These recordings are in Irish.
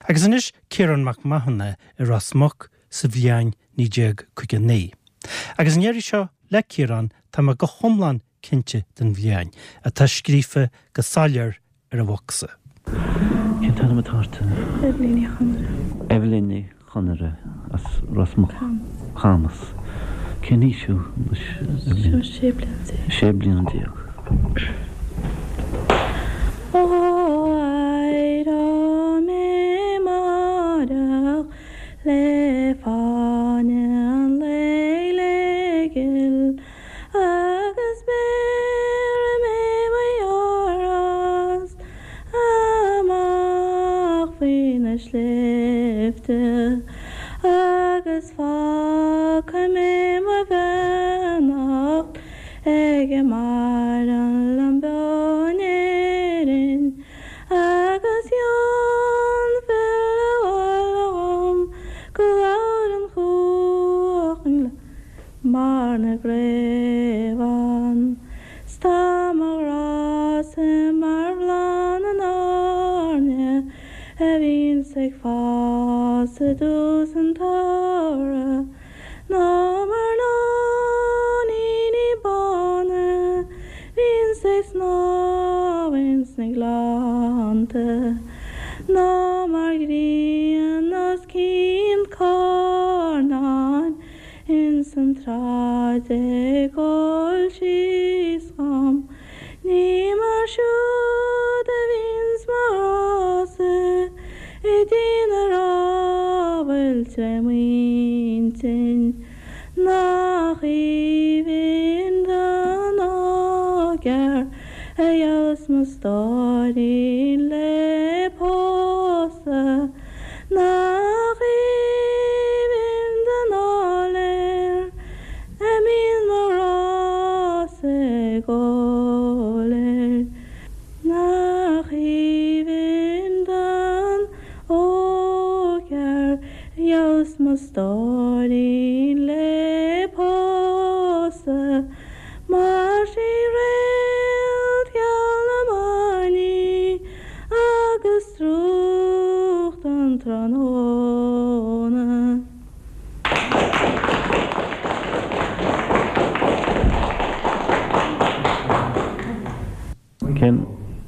Agus anois Ciarán Mac Mathúna i Ros Muc sa bhliain 1959. Agus an iarraidh seo le Ciarán tá mé go hiomlán cinnte den bhliain, atá scríofa go soiléir ar an bhocsa. Cén t-ainm atá ort? Eibhlín Ní Chonaire. Eibhlín Ní Chonaire as Ros Muc. Camas. Cén aois thú anois, Eibhlín? 16 bliana. 16 bliana. Ó éireoidh mé amáireach le fáinne an lae le gil Agus béarfaidh mé mo dheartháir amach faoi na sléibhte agus fágfaidh mé mo bheannacht ag a maireann liom beo in Éirinn agus gheobhainn filleadh abhaile dhom go labhrann chuach an mbarr na gcraobhann 's tá mo ghrá-sa mar bhláth na n-airne a bhíonns ag fás i dtús an tsamhraidh ná mar nóiníní bána bhíonns ag snámh ins na gleannta ná mar ghrian os cionn carnáin Ins an tsráid ag gabháil síos dhom Ní mar siúd a bhíonns mo ghrá-sa I dtír na rámhaille tré m'intinn Nach aoibhinn don ógfhear A gheobhas mo stóirín le pósadh Nach aoibhinn don áiléar a mbíonn mo ghrá-sa ag gabháil air. Nach aoibhinn don ógfhear a gheobhas mo stóirín le pósadh Mar sí réalt gheal na mban í agus drúcht an tráthnóna. Cén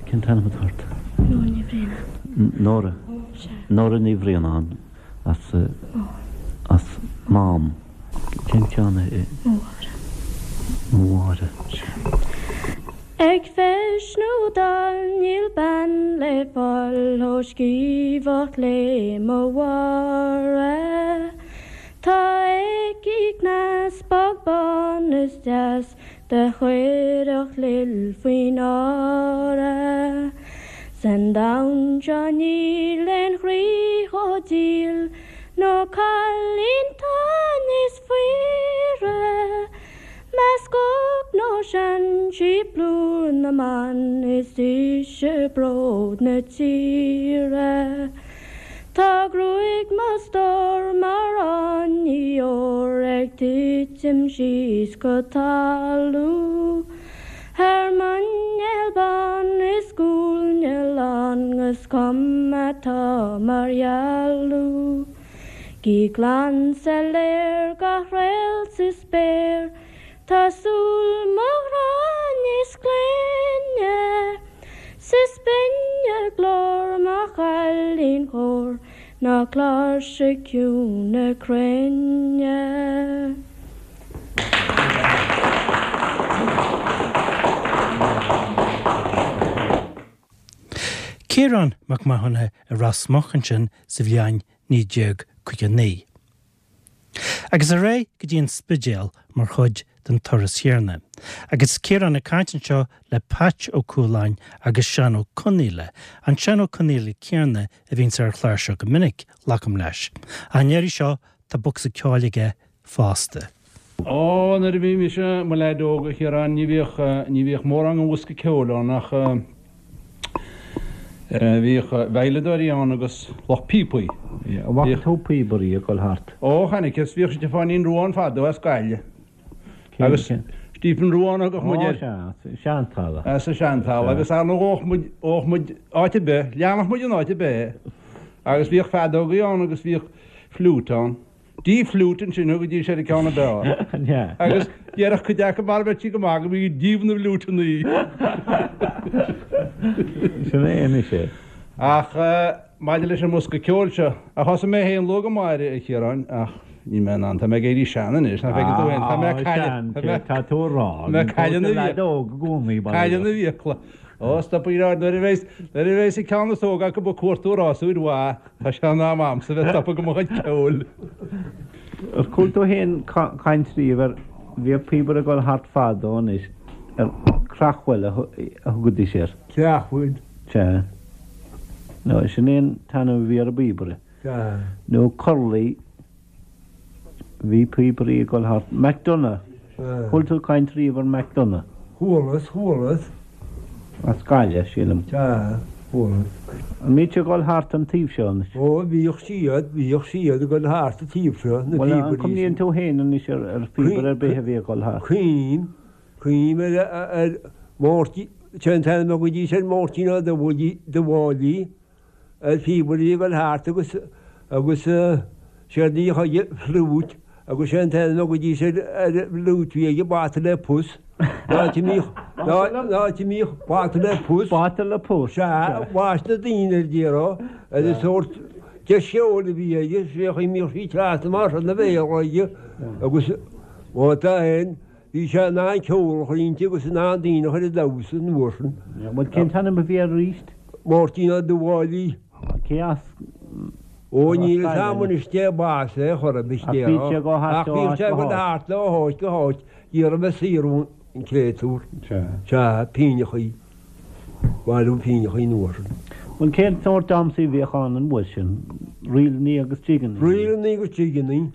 cén t-ainm atá ort? Nóra Ní Bhraonáin. Nóra? Sea. Nóra Ní Bhraonáin as as Mám. Cén ceann é? Mo Mháire. Mo Mháire. Sea. Ag feis nó dall níl bean le fáil chomh sciamhach le mo Mháire. Tá aici cneas bog bán is deas Do chuirfeadh lil faoi náire. San domhan seo níl aon chroí chomh diail nó cailín 'tá níos fuaire. Measc óg nó sean sí plúr na mban is ise bród na tíre. Tá gruaig mo stór mar fháinní óir ag titim síos go talamh. Thar muineál bán is guailne lán 'gus cuma atá mar dhealbh. Gí glan soiléir gach réalt sa spéir Tá súil mo ghrá níos glaine 's is binne glór mo chailín chóir ná cláirseach ciúin na cruinne. Ciarán Mac Mathúna i Ros Muc ansin sa bhliain 1959. Agus ar aghaidh go dtí an Spidéal mar chuid den turas chéanna. Agus Ciarán ag caint anseo le Patch Ó Cualáin agus Seán Ó Conaola, an Seán Ó Conaola céanna a bhíonns ar an chlár seo go minic, glacaim leis. Ach an iarraidh seo tá bocsa ceoil aige fosta. Ó, nuair a bhí mise i mo leaid óg, a Chiaráin, ní bhíodh, ní bhíodh mórán den bhosca ceoil ann ach bhíodh veidhleadóirí ann agus lucht píopaí. An bhfaca tú píobairí ag dul thart? Ó, chonaiceas, bhíodh Stiofáinín Rua ann fadó as Gaillimh. Agus Stephen Rua a thugadh muid air. Ó, sea, as an Seantalamh. As an Seantalamh agus ar ndóigh ghabhadh muid, ghabhadh muid áit ar bith, leanfadh muid in áit ar bith é. Agus bhíodh feadógaí ann agus bhíodh fliúit ann. D fliúit ansin thugaidís ar an ceann ab fhearr. Agus déarfadh cuid acu mara mbeadh sí go maith go mbí díobh na bhfliúiteannaí. Sin é anois é. Ach maidir leis an mbosca ceoil seo, a thosaigh mé féin luath go maith air, a Chiaráin, ach níl mé in ann, tá mé ag éirí sean anois, nach bhfeiceann tú féin, tá mé ag cailleadh, tá mé, Tá tú a rá, tá mé ag cailleadh na leaid óg i gcónaí, bail ó cailleadh na bhfiacla. Ó, stop ag rá, nuair a bheas, nuair a bheas an ceann is óga acu ag cuartú rásúir mhaith, tá sé in am a'msa bheith stopadh go mo chuid ceoil. Ar chuala tú féin caint riamh ar, bhíodh píobaire ag dul thart fadó anois, ar creachbhuil a thugaidís air. Creachbhuil? Sea. Nó sin é an t-ainm a bhí ar an bpíobaire. Sea. Nó corlaí. Bhí píobairí ag dul thart. McDonagh. Chuala tú caint riamh ar McDonagh? Chualas, chualas. As Gaillimh, sílim. Sea, chualas. An mbíodh siad ag dul thart an taobh seo anois? Ó, bhíodh siad, bhíodh siad ag dul thart an taobh seo, na Bhuel, an píobairí sin. cuimhníonn tú féin anois ar ar phíobaire ar bith a bhí ag dul thart? Cuimhním, cuimhním ar, ar Mháirtín, sé an t-ainm a thugaidís air Máirtín Ó Dubhfháilí. Ar phíobaire a bhí ag dul thart agus agus séard a bhíodh aige fliúit agus sé an t-ainm a thugaidís ar ar an bhfliúit a bhí aige bata le pus. An áit a mbíodh an áit a mbíodh bata le pus. Bata le pus. Sea, bhaist na daoine air déarfá ar an sórt deis cheoil a bhí aige, sé an chaoi a mbíodh sí trasna mar sin ina bhéal aige agus má tá aon Bhí sé in ann ceol a chur inti agus in ann daoine a chur ag damhsa an uair sin. Bhuel, cén t-ainm a bhí air arís? Máirtín Ó Dubhfháilí. Cé as? Ó, níl fhios a'm anois cé b'as é chor ar bith Ach bhíodh sé ag dul thart Ach bhíodh sé ag dul thart ó háit go háit ag iarraidh bheith saor ón créatúr. Sea, pínneachaí. Bailiú pínneachaí an uair sin. Bhuel, cén sórt damhsaí a bhíodh ann an uair sin? Ríleannaí agus jigeannaí? Ríleannaí agus jigeannaí.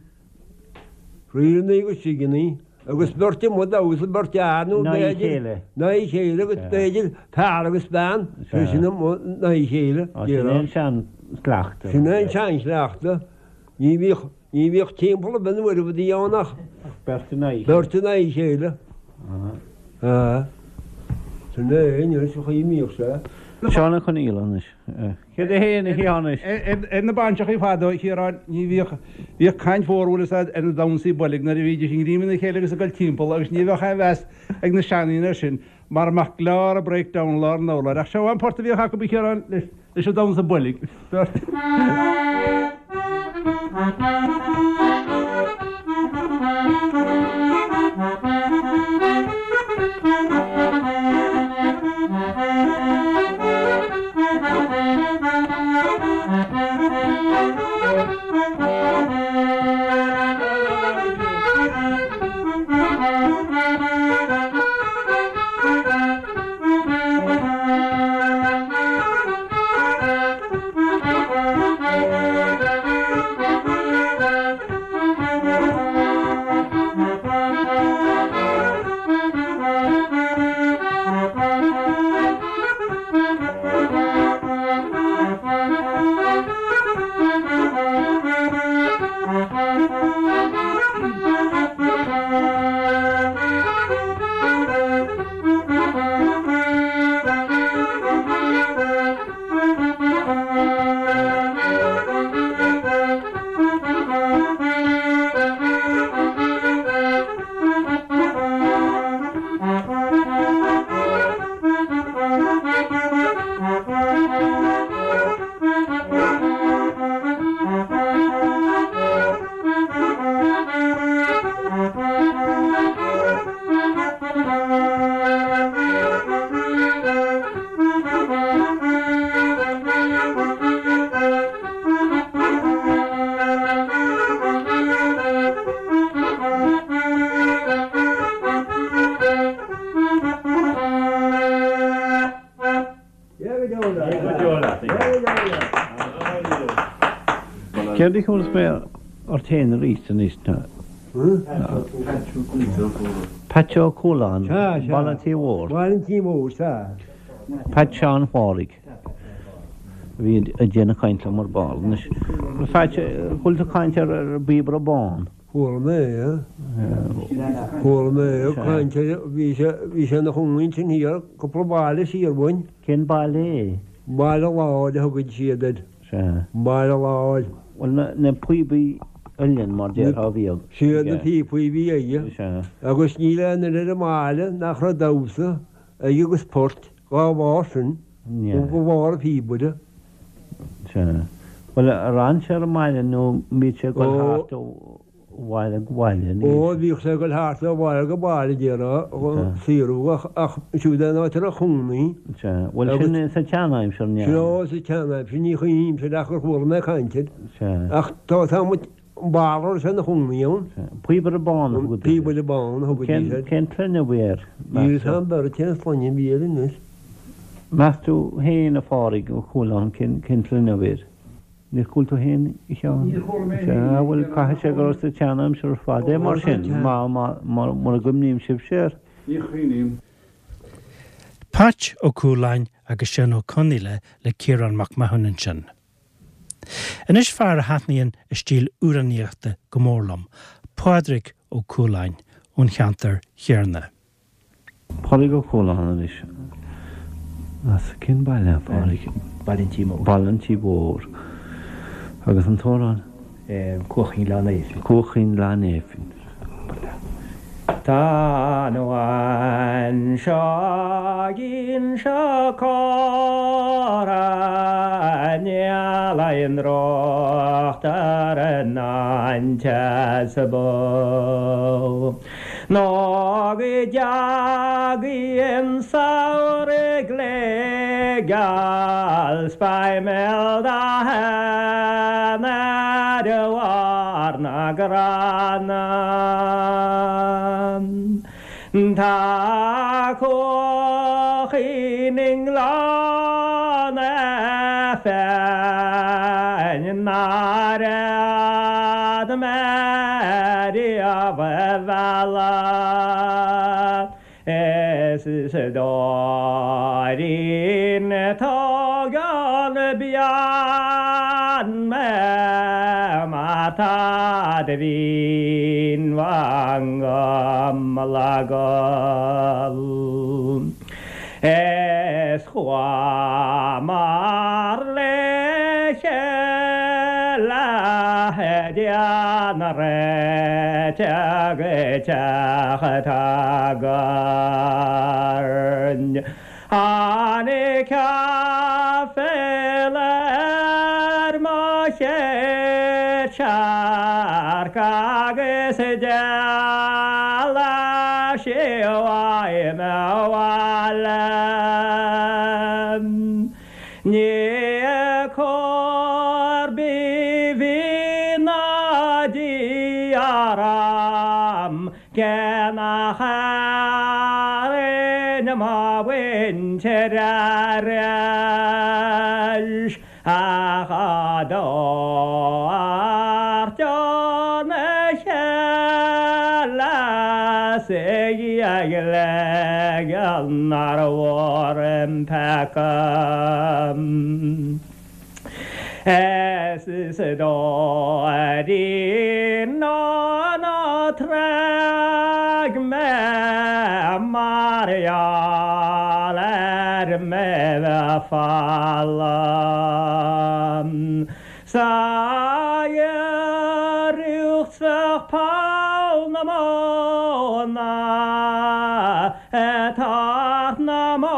Ríleannaí agus jigeannaí agus beirt amuigh ag damhsa, beirt fhear nó b'fhéidir in aghaidh a chéile agus b'fhéidir fear agus bean, sé sin amuigh in aghaidh a chéile. Sin é an seanchleachtadh. Sin é an seanchleachtadh. Ní bhíodh, ní bhíodh timpeall ar bith nuair a bhí ann ach beirt in aghaidh a chéile. Beirt in aghaidh a chéile. Sin é anois an chaoi a mbíodh sé. Seán Ó Conghaile anois. Céard é féin a Sheáin? Ar na bainseachaí fadó, a Chiaráin, ní bhíodh, bhíodh caint mhór, bhfuil fhios a'd, ar na damhsaí boilg nuair a bhídís ag greim ina chéile agus ag dul timpeall agus ní bheadh aon mheas ag na seandaoine air sin mara mbeadh glár a' breakdown i lár an urláir. Ach seo an port a bhíodh acu, a Chiaráin, leis, leis an damhsa boilg. Beirt. Céard a chuala mé ort féin arís anois ná Peait Ó Cualáin, Baile an Tí Mhóir. Baile an Tí Mhóir, sea. Peait Sheáin Phádraig a bhí ag déanamh caint liom ar ball. Anois, Pheait, chuala tú caint ar an bpíobaire bán? Chuala mé é. Chuala mé é ag caint ar, bhí sé, bhí sé ina chónaí ansin thiar, cúpla baile siar uainn. Cén baile é? Baile Láir a thugann siad air. Sea. Sea. Baile Láir. Bhuel, na píobaí uilleann mar déarfá a bhíodh Siad na píopaí a bhí aige. Sea. Agus níl aon duine ar an mbaile nach raibh damhsa aige agus port dhá bharr sin, ó bharr an phíobaire. Sea. Bhuel, ar fhan sé ar an mbaile nó an mbíodh sé ag dul thart ó bhaile go baile? Ó, bhíodh sé ag dul thart ó bhaile go baile, déarfá, ag saothrú ach siúd é an áit a raibh cónaí. Sea. Bhuel, sin sa tseanaimsir, an ea? Sea, sa tseanaimsir, ní chuimhnímse ach gur chuala mé caint air. Sea. Ach tá, tá muid, an barra a raibh sé ina chónaí ann. Sea. Píobaire Bán a thugaidís air. Píobaire Bán a thugaidís air. Cén tsloinne a bhí air, meas tú? Níl a fhios a'm beirt cén sloinne a bhí air anois. Meas tú féin, a Phádraig, Ó Cualáin, cén tsloinne a bhí air? Níor chuala tú féin, a Sheáin? Níor chuala mé féin. Sea, bhuel, caithfidh sé go raibh sa tseanaimsir ar fad é mar sin, mura gcuimhníonn sibhse air. Ní chuimhním. Patch Ó Cualáin agus Seán Ó Conaola le Ciarán Mac Mathúna ansin. Anois fear a thaitníonn a stíl amhránaíochta go mór liom, Pádraig Ó Cualáin ón cheantar chéarna. Pádraig Ó Cualáin anois. As cén baile, a Phádraig? Baile an Tí Mhóir. Baile an Tí Mhóir. Agus an t-amhrán? Cuach Chinn Ghleann Néifinn. Cuach Chinn Ghleann Néifinn. Tá an abhainn seo Inse Chór Níl aon trácht ar an ainteas bó. Nó go dteagaidh an samhradh glé geal 's beidh mé d'aon ar bharr na gcrann. Tá cuachín i nGleann Néifinn nár fhéad mé riamh a mhealladh is Dóirín tógann bean mé mar tá do mhínbhang le gol. Is chuamar le chéile déanamh réiteach go teach tSaghairn. Tháinig aiféala ar mo chéad searc agus d'éalaigh sí uaim abhaile. Ní cóir bíbí ná Dia orm Cé nach airinn mo mhuintir arís ach á dtabhairt óna chéile 's ag ligean nár mhór an peaca. Is Dóirín ó ná tréig mé mar gheall ar mé bheith folamh 'S a iarracht bheadh poll na móna ag teacht na mbó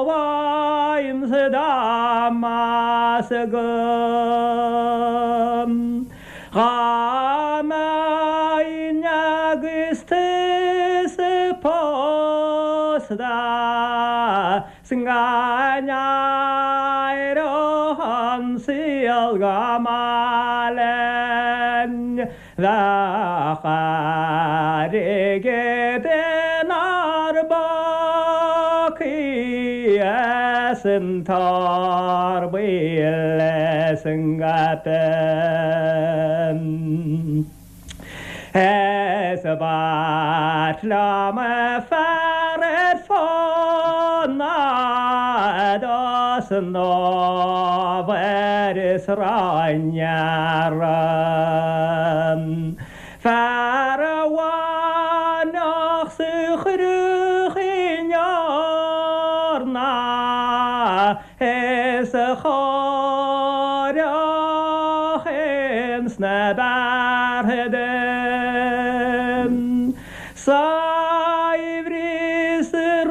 uaimse dá mb'fhearr agam dhá mbeinn agus tusa pósta 's go n-éireodh an saol go maith linn. Bheadh airgead inár bpócaí is an t-ór buí is an gcaipe. Is b'ait liom fear ar fónamh dos an ábhar is ráineara. Fear a bhainfeadh 's a chuirfeadh in eorna is a chóireodh. chloch ins na beartha dom. Saibhreas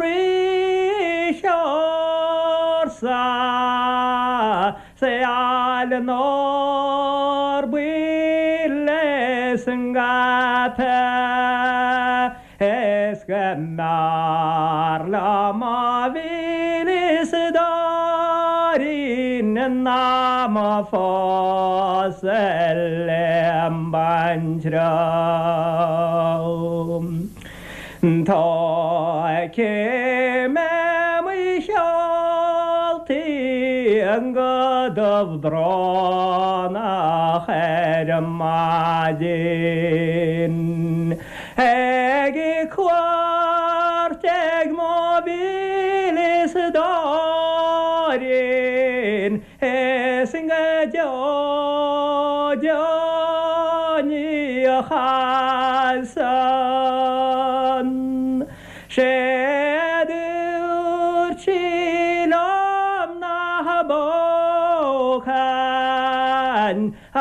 rith ársa seal nár buile san gcaipe is go mb'fhearr liom mo mhílis dóirín ná mo phósadh lem baintreabh. Tógfaidh mé mo sheoltaí go dubh brónach ar maidin ag cuairt ag mo mhílis dóirín is go deo deo ní chasfainn. Sé a dúirt sí liom nach bpógfainn a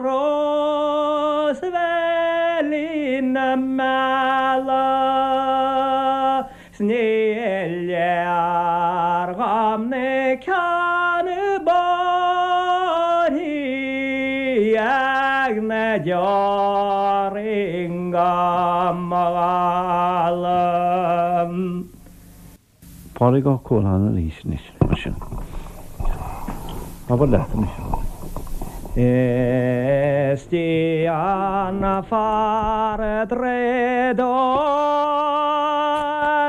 Rósbheilín na Meala. 'S ní léir dhom na ceanna bóithre ag na deoraí go mo ghála. Pádraig Ó Cualáin arís anois, mar sin. Abair leat anois, a Phádraig. Is dian fear draíodóir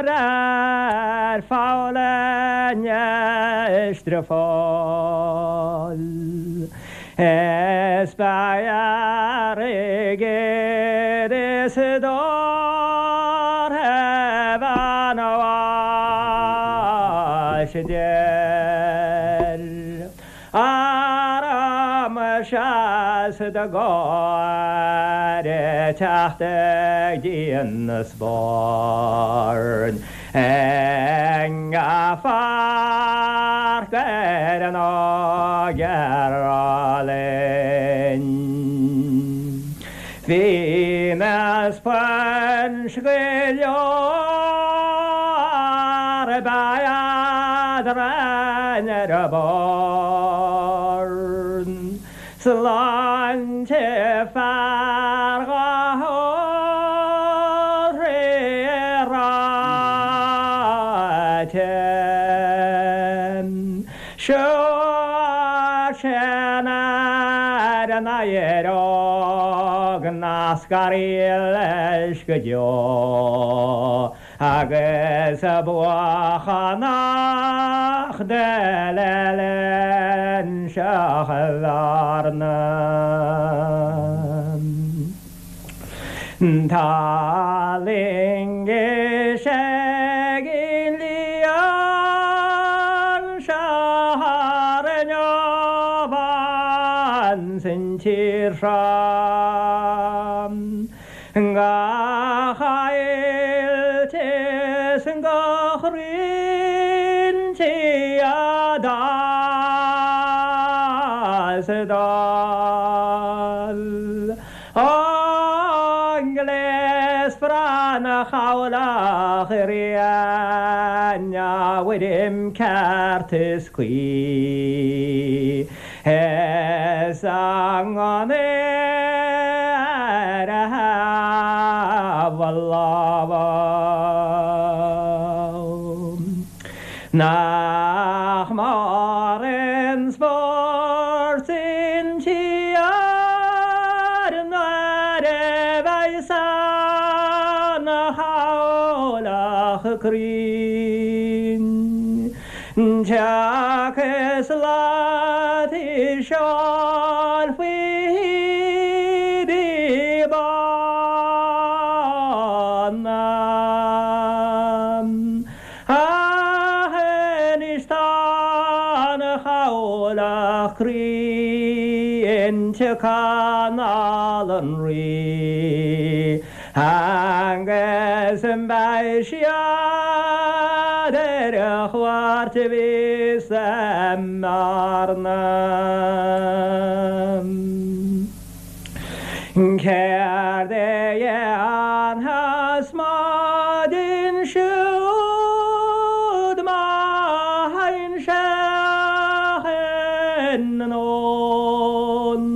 ar pholl an Eistrefáil. Is beidh airgead is dórtha bhean bháis deir. Arm seas do gáire teacht ag díon na spáirn i ngach pháirc ar an ógear álainn. Bhí na sponge go leor ba eadrainn ar a bord. Sláinte fear dhá ól ré ráite. Seo sin ar an éireodh nach scarfaí leis go deo. Agus buachan nach d'eile linn seo Bhearna. Tá loingis ag an líon seo thar an Abhainn san tír seo. Gach ailt is gach roinnt a d'fhás dall. An gléas breá 'na chabhlach rian a bhfuirim ceart is cuí. Is a ngunnaí ar a thaobh a lámha. Nach mór an spórt an tír nuair a bheidh san chabhlach cruinn. Teach is lat i seol faoi hídí bána. Ach anois tá an chabhlach cruinn tugtha anall an Rí. Agus beidh siad ar a chuairt a bhí sa mBearna. Céard a dhéanfas maidin siúd má théann sé anonn?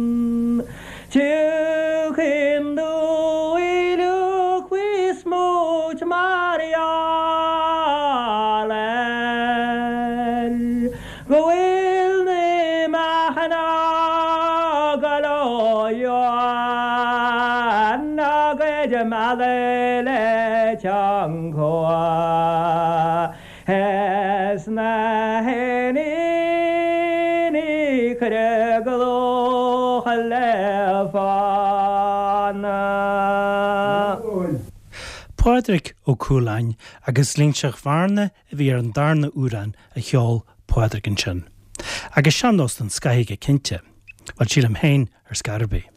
Tiocfaidh an dúil faoi smúit mar gheall air go bhfuil na meáchain á gcur ó dheoin á gcuid mealladh le teanga is na héiníní cuireadh go dlúth le fána. Pádraig Ó Cualáin agus Linseach Bhearna a bhí ar an darna amhrán a cheol Pádraig ansin. Agus sean-nós den scoth aige cinnte. Bhuel, sílim féin ar scor ar bith.